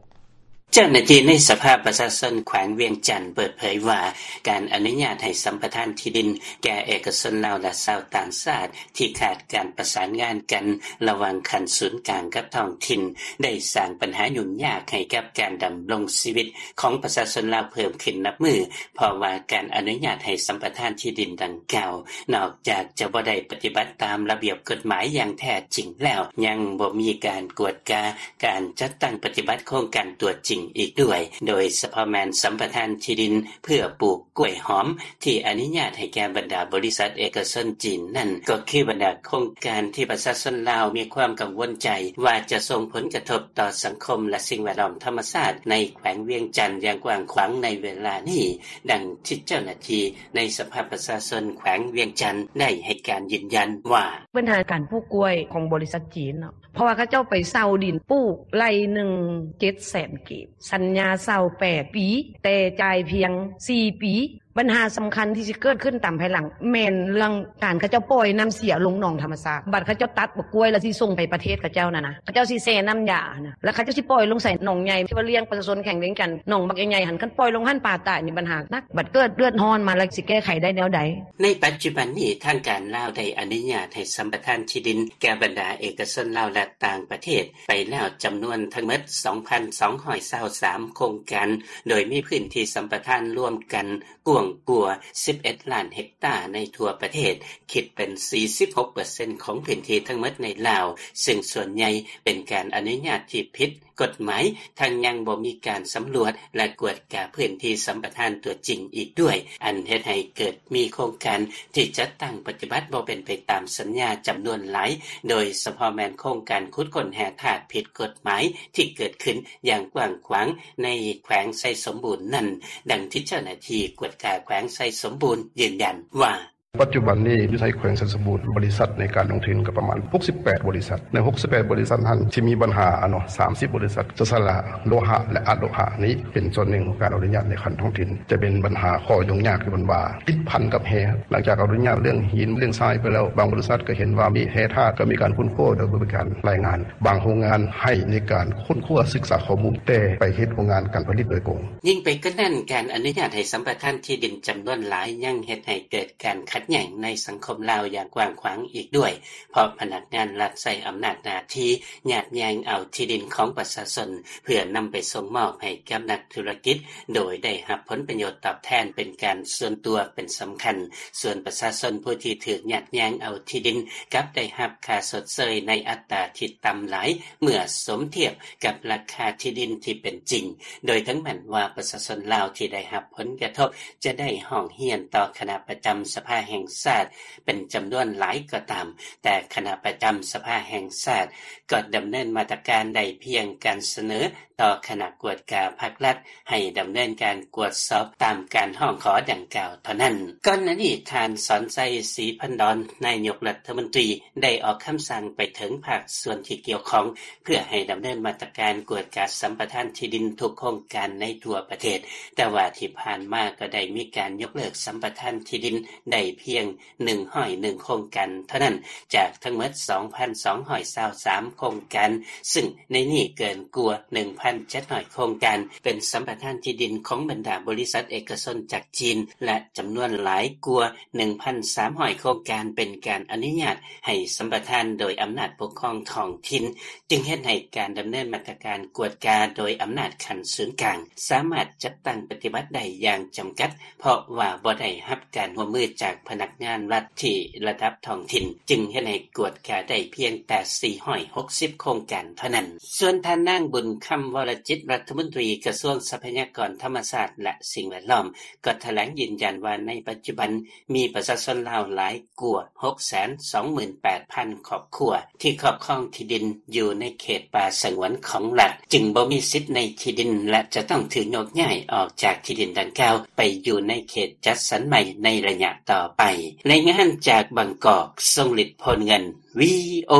ເຈົ້າໜ້າທີ່ໃນສະພາປະຊາຊົນແຂວງວຽງຈັນເປີດເຜີຍວ່າ ການອະນຸຍາດໃຫ້ສຳປະທານທີ່ດິນແກ່ເອກະຊົນລາວ ແລະ ຊາວຕ່າງຊາດ ທີ່ຂາດການປະສານງານກັນລະຫວ່າງຂັ້ນສູນກາງກັບທ້ອງຖິ່ນ ໄດ້ສ້າງບັນຫາຫຍຸ້ງຍາກໃຫ້ກັບການດຳລົງຊີວິດຂອງປະຊາຊົນລາວເພີ່ມຂຶ້ນນັບມື້ ເພາະວ່າການອະນຸຍາດໃຫ້ສຳປະທານທີ່ດິນດັ່ງກ່າວ ນອກຈາກຈະບໍ່ໄດ້ປະຕິບັດຕາມລະບຽບກົດໝາຍຢ່າງແທ້ຈິງແລ້ວ ຍັງບໍ່ມີການກວດກາ ການຈັດຕັ້ງປະຕິບັດໂຄງການຕົວຈິງອີກດ້ວຍ, ໂດຍສະເພາະແມ່ນສຳປະທານທີ່ດິນເພື່ອປູກກ້ວຍຫອມ ທີ່ອະນຸຍາດໃຫ້ແກ່ບັນດາບໍລິສັດເອກະຊົນຈີນນັ້ນ ກໍຄືບັນດາໂຄງການທີ່ປະຊາຊົນລາວມີຄວາມກັງວົນໃຈວ່າຈະສົ່ງຜົນກະທົບຕໍ່ສັງຄົມ ແລະ ສິ່ງແວດລ້ອມທຳມະຊາດໃນແຂວງວຽງຈັນຢ່າງກວ້າງຂວາງໃນເວລານີ້, ດັ່ງທີ່ເຈົ້າໜ້າທີ່ໃນສະພາປະຊາຊົນແຂວງວຽງຈັນໄດ້ໃຫ້ການຢືນຢັນວ່າ ບັນຫາການປູກກ້ວຍຂອງບໍລິສັດຈີນເນາະ ເພາະວ່າເຂົາເຈົ້າໄປເຊົ່າດິນປູກໄລ່ໜຶ່ງເຈັດແສນກີບ, ສັນຍາເຊົ່າແປດປີ ແຕ່ຈ່າຍພຽງສີ່ປີ. ບັນຫາສຳຄັນທີ່ຊິເກີດຂຶ້ນຕາມພາຍຫຼັງ ແມ່ນເລື່ອງການເຂົາເຈົ້າປ່ອຍນ້ຳເສຍລົງໜອງທຳມະຊາດ, ບັດເຂົາເຈົ້າຕັດບັກກ້ວຍແລ້ວຊິສົ່ງໄປປະເທດເຂົາເຈົ້ານັ້ນນະ, ເຂົາເຈົ້າຊິແຊ່ນ້ຳຢາຫັ້ນນະ ແລ້ວເຂົາເຈົ້າຊິປ່ອຍລົງໃສ່ໜອງໃຫຍ່ ທີ່ວ່າລ້ຽງປະຊາຊົນແຂວງວຽງຈັນ ໜອງບັກໃຫຍ່ໆຫັ້ນ, ຄັນປ່ອຍລົງຫັ້ນປາຕາຍນີ້ບັນຫາໜັກ, ບັດເກີດເດືອດຮ້ອນມາແລ້ວຊິແກ້ໄຂໄດ້ແນວໃດ? ໃນປັດຈຸບັນນີ້ ທາງການລາວໄດ້ອະນຸຍາດໃຫ້ສຳປະທານທີ່ດິນແກ່ບັນດາເອກະຊົນລາວ ແລະ ຕ່າງປະເທດໄປແລ້ວຈຳນວນທັງໝົດສອງພັນສອງຮ້ອຍຊາວສາມໂຄງການ, ໂດຍມີພື້ນທີ່ສຳປະທານລວມກັນກວ້າງກວ່າສິບເອັດລ້ານເຮັກຕາໃນທົ່ວປະເທດ, ຄິດເປັນສີ່ສິບຫົກເປີເຊັນຂອງພື້ນທີ່ທັງໝົດໃນລາວ, ເຊິ່ງສ່ວນໃຫຍ່ເປັນການອະນຸຍາດທີ່ຜິດ ກົດໝາຍ, ທັງຍັງບໍ່ມີການສຳຫຼວດ ແລະ ກວດກາພື້ນທີ່ສຳປະທານຕົວຈິງອີກດ້ວຍ, ອັນເຮັດໃຫ້ເກີດມີໂຄງການທີ່ຈັດຕັ້ງປະຕິບັດບໍ່ເປັນໄປຕາມສັນຍາຈຳນວນຫຼາຍ, ໂດຍສະເພາະແມ່ນໂຄງການຂຸດຄົ້ນແຮ່ທາດຜິດກົດໝາຍທີ່ເກີດຂຶ້ນຢ່າງກວ້າງຂວາງໃນແຂວງໄຊສົມບູນນັ້ນ, ດັ່ງທີ່ເຈົ້າໜ້າທີ່ກວດກາແຂວງໄຊສົມບູນຢືນຢັນວ່າ ປັດຈຸບັນນີ້ຢູ່ໃນແຂວງໄຊສົມບູນ ບໍລິສັດໃນການລົງທຶນກໍປະມານຫົກສິບແປດບໍລິສັດ, ໃນຫົກສິບແປດບໍລິສັດນັ້ນ ທີ່ມີບັນຫາເນາະ ສາມສິບບໍລິສັດ ຈະສະຫຼະໂລຫະ ແລະ ອະໂລຫະນີ້ເປັນສ່ວນໜຶ່ງຂອງການອະນຸຍາດໃນຂັ້ນທ້ອງຖິ່ນ, ຈະເປັນບັນຫາຂໍ້ຫຍຸ້ງຍາກທີ່ເພິ່ນວ່າຕິດພັນກັບແຮ່. ຫຼັງຈາກອະນຸຍາດເລື່ອງຫີນເລື່ອງຊາຍໄປແລ້ວ, ບາງບໍລິສັດກໍເຫັນວ່າມີແຮ່ທາດ ກໍມີການຄົ້ນຄວ້າໂດຍບໍ່ມີການລາຍງານ, ບາງໂຮງງານໃຫ້ໃນການຄົ້ນຄວ້າສຶກສາຂໍ້ມູນ ແຕ່ໄປເຮັດໂຮງງານການຜະລິດໂດຍກົງ. ຍິ່ງໄປກວ່ານັ້ນ, ການອະນຸຍາດໃຫ້ສຳປະທານທີ່ດິນຈຳນວນຫຼາຍ ຍັງເຮັດໃຫ້ເກີດການຂັດແຍ່ງໃນສັງຄົມລາວຢ່າງກວ້າງຂວາງອີກດ້ວຍ, ເພາະພະນັກງານລັດໃຊ້ອຳນາດໜ້າທີ່ຍາດແຍ່ງເອົາທີ່ດິນຂອງປະຊາຊົນ ເພື່ອນຳໄປສົ່ງມອບໃຫ້ກັບນັກທຸລະກິດ ໂດຍໄດ້ຮັບຜົນປະໂຫຍດຕອບແທນເປັນການສ່ວນຕົວເປັນສຳຄັນ, ສ່ວນປະຊາຊົນຜູ້ທີ່ຖືກຍາດແຍ່ງເອົາທີ່ດິນ ກັບໄດ້ຮັບຄ່າຊົດເຊີຍໃນອັດຕາທີ່ຕ່ຳຫຼາຍ ເມື່ອສົມທຽບກັບລາຄາທີ່ດິນທີ່ເປັນຈິງ, ໂດຍເຖິງແມ່ນວ່າປະຊາຊົນລາວທີ່ໄດ້ຮັບຜົນກະທົບຈະໄດ້ຮ້ອງຮຽນຕໍ່ຄະນະປະຈຳສະພາແຫ່ງຊາດເປັນຈຳນວນຫຼາຍກໍຕາມ, ແຕ່ຄະນະປະຈຳສະພາແຫ່ງຊາດກໍດຳເນີນມາດຕະການໄດ້ພຽງການສະເໜີຕໍ່ຄະນະກວດກາພັກລັດ ໃຫ້ດຳເນີນການກວດສອບຕາມການຮ້ອງຂໍດັ່ງກ່າວເທົ່ານັ້ນ. ກ່ອນໜ້ານີ້ ທ່ານ ສອນໄຊ ສີພັນດອນ ນາຍົກລັດຖະມົນຕີ ໄດ້ອອກຄຳສັ່ງໄປເຖິງພາກສ່ວນທີ່ກ່ຽວຂ້ອງ ເພື່ອໃຫ້ດຳເນີນມາດຕະການກວດກາສຳປະທານທີ່ດິນທຸກໂຄງການໃນທົ່ວປະເທດ, ແຕ່ວ່າທີ່ຜ່ານມາກໍໄດ້ມີການຍົກເລີກສຳປະທານທີ່ດິນໄດ້ພຽງ ໜຶ່ງຮ້ອຍໜຶ່ງໂຄງການເທົ່ານັ້ນ ຈາກທັງໝົດ ສອງພັນສອງຮ້ອຍຊາວສາມໂຄງການ, ຊຶ່ງໃນນີ້ເກີນກວ່າ ໜຶ່ງພັນເຈັດຮ້ອຍໂຄງການ ເປັນສຳປະທານທີ່ດິນຂອງບັນດາບໍລິສັດເອກະຊົນຈາກຈີນ ແລະ ຈຳນວນຫຼາຍກວ່າ ໜຶ່ງພັນສາມຮ້ອຍໂຄງການ ເປັນການອະນຸຍາດໃຫ້ສຳປະທານໂດຍອຳນາດປົກຄອງທ້ອງຖິ່ນ, ຈຶ່ງເຮັດໃຫ້ການດຳເນີນມາດຕະການກວດກາໂດຍອຳນາດຂັ້ນສູນກາງ ສາມາດຈັດຕັ້ງປະຕິບັດໄດ້ຢ່າງຈຳກັດ ເພາະວ່າບໍ່ໄດ້ຮັບການຮ່ວມມືຈາກພະນັກງານລັດທີ່ລະດັບທ້ອງຖິ່ນ, ຈຶ່ງເຮັດໃຫ້ກວດກາໄດ້ພຽງແຕ່ສີ່ຮ້ອຍຫົກສິບໂຄງການເທົ່ານັ້ນ. ສ່ວນທ່ານນາງ ບຸນຄຳ ວໍລະຈິດ ລັດຖະມົນຕີກະຊວງຊັບພະຍາກອນທຳມະຊາດ ແລະ ສິ່ງແວດລ້ອມ ກໍຖະແຫຼງຢືນຢັນວ່າ ໃນປັດຈຸບັນມີປະຊາຊົນລາວຫຼາຍກວ່າຫົກແສນສອງໝື່ນແປດພັນຄອບຄົວ ທີ່ຄອບຄອງທີ່ດິນຢູ່ໃນເຂດປ່າສະຫງວນຂອງລັດ, ຈຶ່ງບໍ່ມີສິດໃນທີ່ດິນ ແລະ ຈະຕ້ອງຖືກໂຍກຍ້າຍອອກຈາກທີ່ດິນດັ່ງກ່າວໄປຢູ່ໃນເຂດຈັດສັນໃໝ່ໃນໄລຍະຕໍ່ໄປ. ລາຍງານຈາກບາງກອກ ຊົງລິດ ໂພນເງິນ ວີໂອ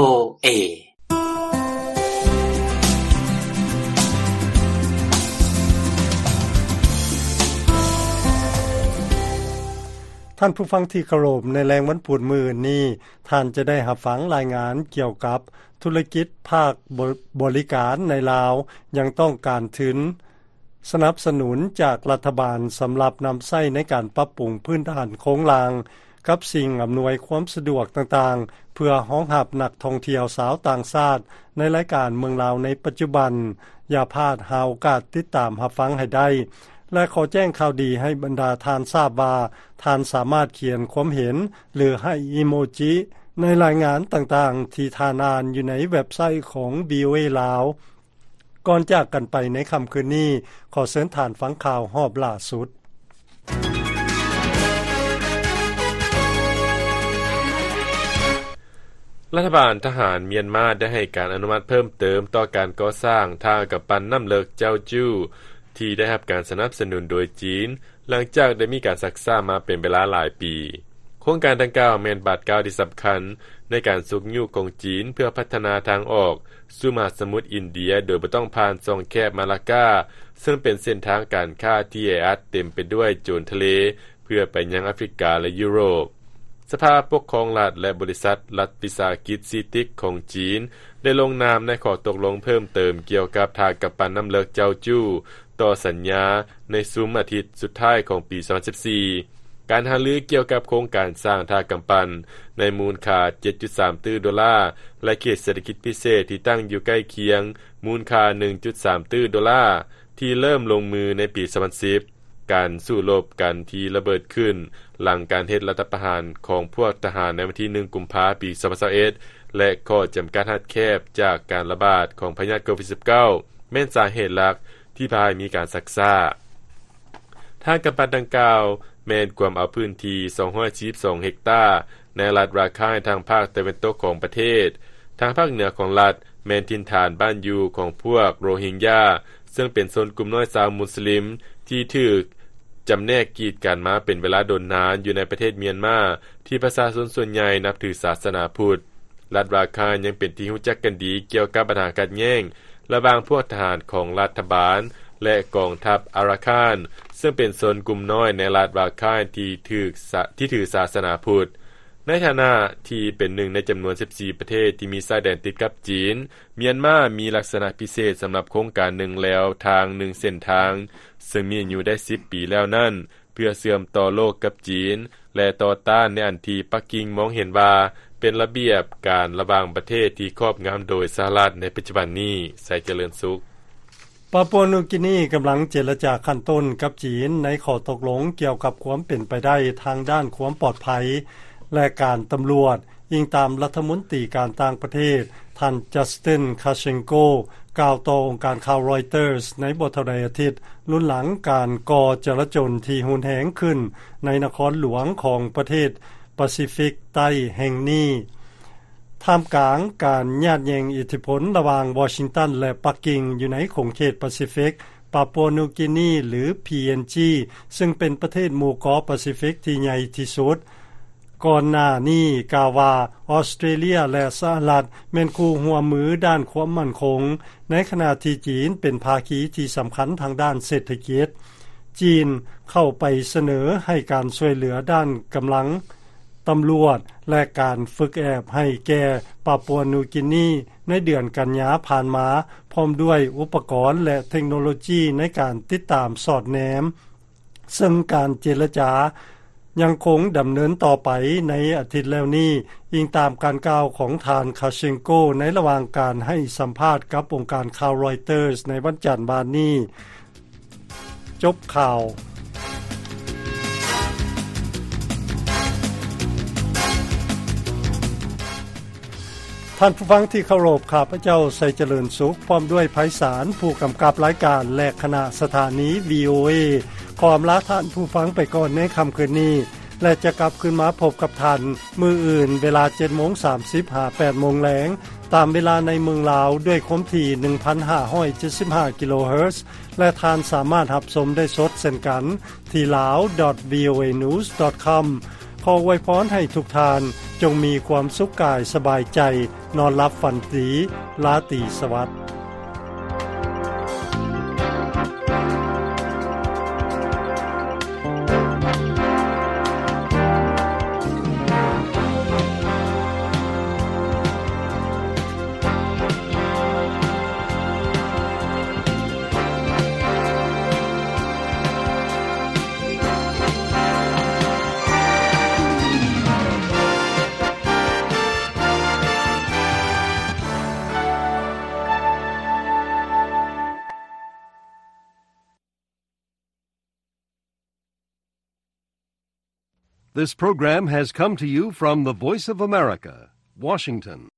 ເອ. ທ່ານຜູ້ຟັງທີ່ເຄົາລົບ, ໃນແລງວັນພຸດມື້ອື່ນນີ້ ທ່ານຈະໄດ້ຮັບຟັງລາຍງານກ່ຽວກັບທຸລະກິດພາກບໍ ບໍລິການໃນລາວ ຍັງຕ້ອງການທຶນ ສະໜັບສະໜູນຈາກລັດຖະບານສຳລັບນຳໃຊ້ໃນການປັບປຸງພື້ນຖານໂຄງລ່າງ ກັບສິ່ງອຳນວຍຄວາມສະດວກຕ່າງໆ ເພື່ອຮອງຮັບນັກທ່ອງທ່ຽວຊາວຕ່າງຊາດ ໃນລາຍການເມືອງລາວໃນປັດຈຸບັນ. ຢ່າພາດຫາໂອກາດຕິດຕາມຮັບຟັງໃຫ້ໄດ້ ແລະ ຂໍແຈ້ງຂ່າວດີໃຫ້ບັນດາທ່ານຊາບວ່າ ທ່ານສາມາດຂຽນຄວາມເຫັນ ຫຼື ໃຫ້ອີໂມຈິ ໃນລາຍງານຕ່າງໆ ທີ່ທ່ານອ່ານຢູ່ໃນເວັບໄຊຂອງ ວີໂອເອ ລາວ. ກ່ອນຈາກກັນໄປໃນຄ່ຳຄືນນີ້, ຂໍເຊີນທ່ານຟັງຂ່າວຮອບລ່າສຸດ. ລັດຖະບານທະຫານມຽນມາໄດ້ໃຫ້ການອະນຸມັດເພີ່ມເຕີມຕໍ່ການກໍ່ສ້າງທ່າກຳປັ່ນນ້ຳເລິກເຈົ້າຈູ້ ທີ່ໄດ້ຮັບການສະໜັບສະໜູນໂດຍຈີນ, ຫຼັງຈາກໄດ້ມີການຊັກຊ້າມາເປັນເວລາຫຼາຍປີ. ໂຄງການດັ່ງກ່າວແມ່ນບາດກ້າວທີ່ສຳຄັນໃນການຊຸກຍູ້ຂອງຈີນເພື່ອພັດທະນາທາງອອກສູ່ມະຫາສະໝຸດອິນເດຍ ໂດຍບໍ່ຕ້ອງຜ່ານຊ່ອງແຄບມາລາກາ ເຊິ່ງເປັນເສັ້ນທາງການຄ້າທີ່ແອອັດເຕັມໄປດ້ວຍໂຈນທະເລ ເພື່ອໄປຍັງອາຟຣິກາ ແລະ ຢູໂຣບ. ສະພາປົກຄອງລັດ ແລະ ບໍລິສັດລັດວິສາຫະກິດຊີຕິກຂອງຈີນ ໄດ້ລົງນາມໃນຂໍ້ຕົກລົງເພີ່ມເຕີມກ່ຽວກັບທ່າກຳປັ່ນນ້ຳເລິກເຈົ້າຈູ້ ຕໍ່ສັນຍາໃນຊຸມອາທິດສຸດທ້າຍຂອງປີສອງພັນສິບສີ່. ການຫາລືກ່ຽວກັບໂຄງການສ້າງທ່າກຳປັ່ນໃນມູນຄ່າເຈັດຈຸດສາມຕື້ໂດລາ ແລະ ເຂດເສດຖະກິດພິເສດທີ່ຕັ້ງຢູ່ໃກ້ຄຽງ ມູນຄ່າໜຶ່ງຈຸດສາມຕື້ໂດລາ ທີ່ເລີ່ມລົງມືໃນປີສອງພັນສິບ, ການສູ້ລົບກັນທີ່ລະເບີດຂຶ້ນຫຼັງການເຮັດລັດຖະປະຫານຂອງພວກທະຫານໃນວັນທີໜຶ່ງ ກຸມພາ ປີສອງພັນຊາວເອັດ ແລະ ຂໍ້ຈຳກັດຮັດແຄບຈາກການລະບາດຂອງພະຍາດໂຄວິດສິບເກົ້າ ແມ່ນສາເຫດຫຼັກທີ່ພາໃຫ້ມີການຊັກຊ້າ. ທ່າກຳປັ່ນດັ່ງກ່າວແມ່ນກວມເອົາພື້ນທີ່ສອງຮ້ອຍສີ່ສິບສອງເຮັກຕາ ໃນລັດຣາຄາຍທາງພາກຕາເວັນຕົກຂອງປະເທດ. ທາງພາກເໜືອຂອງລັດແມ່ນຖິ່ນຖານບ້ານຢູ່ຂອງພວກໂຣຮິງຢາ ເຊິ່ງເປັນຊົນກຸ່ມນ້ອຍຊາວມຸສລິມທີ່ຖືກຈຳແນກກີດກັນມາເປັນເວລາດົນນານຢູ່ໃນປະເທດມຽນມາ ທີ່ປະຊາຊົນສ່ວນໃຫຍ່ນັບຖືສາສະໜາພຸດ. ລັດຣາຄາຍຍັງເປັນທີ່ຮູ້ຈັກກັນດີກ່ຽວກັບບັນຫາຂັດແຍ່ງລະຫວ່າງພວກທະຫານຂອງລັດຖະບານ ແລະ ກອງທັບອາຣາຄານ ເຊິ່ງເປັນຊົນກຸ່ມນ້ອຍໃນລັດຣາຄາຍທີ່ຖືສາ ທີ່ຖືສາສະໜາພຸດ. ໃນຖານະທີ່ເປັນໜຶ່ງໃນຈຳນວນສິບສີ່ປະເທດທີ່ມີຊາຍແດນຕິດກັບຈີນ, ມຽນມາມີລັກສະນະພິເສດສຳລັບໂຄງການໜຶ່ງແລວທາງໜຶ່ງເສັ້ນທາງ ເຊິ່ງມີອາຍຸໄດ້ສິບປີແລ້ວນັ້ນ ເພື່ອເຊື່ອມຕໍ່ໂລກກັບຈີນ ແລະ ຕໍ່ຕ້ານໃນອັນທີ່ປັກກິ່ງມອງເຫັນວ່າເປັນລະບຽບການລະຫວ່າງປະເທດທີ່ຄອບງຳໂດຍສະຫະລັດໃນປັດຈຸບັນນີ້. ໄຊຈະເລີນສຸກ. ປາປົວນິວກີນີກຳລັງເຈລະຈາຂັ້ນຕົ້ນກັບຈີນໃນຂໍ້ຕົກລົງກ່ຽວກັບຄວາມເປັນໄປໄດ້ທາງດ້ານຄວາມປອດໄພ ແລະ ການຕຳຫຼວດ, ອີງຕາມລັດຖະມົນຕີການຕ່າງປະເທດ ທ່ານ Justin Kharchenko ກ່າວຕໍ່ອົງການຂ່າວ Reuters ໃນບໍ່ເທົ່າໃດອາທິດ ລຸນຫຼັງການກໍ່ຈະລາຈົນທີ່ຮຸນແຮງຂຶ້ນໃນນະຄອນຫຼວງຂອງປະເທດປາຊີຟິກໃຕ້ແຫ່ງນີ້. ທ່າມກາງການຍາດແຍ່ງອິດທິພົນລະຫວ່າງວໍຊິງຕັນ ແລະ ປັກກິ່ງ ຢູ່ໃນຂົງເຂດປາຊີຟິກ, ປາປົວນິວກີນີ ຫຼື ພີເອັນຈີ ເຊິ່ງເປັນປະເທດໝູ່ເກາະປາຊີຟິກທີ່ໃຫຍ່ທີ່ສຸດ ກ່ອນໜ້ານີ້ກ່າວວ່າ ອອສເຕຣເລຍ ແລະ ສະຫະລັດ ແມ່ນຄູ່ຮ່ວມມືດ້ານຄວາມໝັ້ນຄົງ, ໃນຂະນະທີ່ຈີນເປັນພາຄີທີ່ສຳຄັນທາງດ້ານເສດຖະກິດ. ຈີນເຂົ້າໄປສະເໜີໃຫ້ການຊ່ວຍເຫຼືອດ້ານກຳລັງ ຕຳຫຼວດ ແລະ ການຝຶກແອບໃຫ້ແກ່ປາປົວນິວກີນີໃນເດືອນກັນຍາຜ່ານມາ, ພ້ອມດ້ວຍອຸປະກອນ ແລະ ເທັກໂນໂລຈີໃນການຕິດຕາມສອດແນມ, ເຊິ່ງການເຈລະຈາຍັງຄົງດຳເນີນຕໍ່ໄປໃນອາທິດແລ້ວນີ້, ອີງຕາມການກ່າວຂອງທ່ານ Kharchenko ໃນລະຫວ່າງການໃຫ້ສຳພາດກັບອົງການຂ່າວ Reuters ໃນວັນຈັນວານນີ້. ຈົບຂ່າວ. ທ່ານຜູ້ຟັງທີ່ເຄົາລົບ, ຂ້າພະເຈົ້າ ໄຊຈະເລີນສຸກ ພ້ອມດ້ວຍໄພສານ ຜູ້ກຳກັບລາຍການ ແລະ ຄະນະສະຖານີ ວີໂອເອ ຂໍອຳລາທ່ານຜູ້ຟັງໄປກ່ອນໃນຄ່ຳຄືນນີ້ ແລະ ຈະກັບຄືນມາພົບກັບທ່ານມື້ອື່ນ ເວລາເຈັດໂມງສາມສິບ ຫາ ແປດໂມງແລງ ຕາມເວລາໃນເມືອງລາວ ດ້ວຍຄວາມຖີ່ ໜຶ່ງພັນຫ້າຮ້ອຍເຈັດສິບຫ້າ ກິໂລເຮີດ ແລະ ທ່ານສາມາດຮັບຊົມໄດ້ສົດເຊັ່ນກັນ ທີ່ ลาว ດອດ ວີໂອເອ ນິວສ໌ ດອດ ຄອມ. ຂໍອວຍພອນໃຫ້ທຸກທ່ານຈົ່ງມີຄວາມສຸກກາຍສະບາຍໃຈ, ນອນຫຼັບຝັນດີ, ລາຕີສະຫວັດ. This program has come to you from the Voice of America, Washington.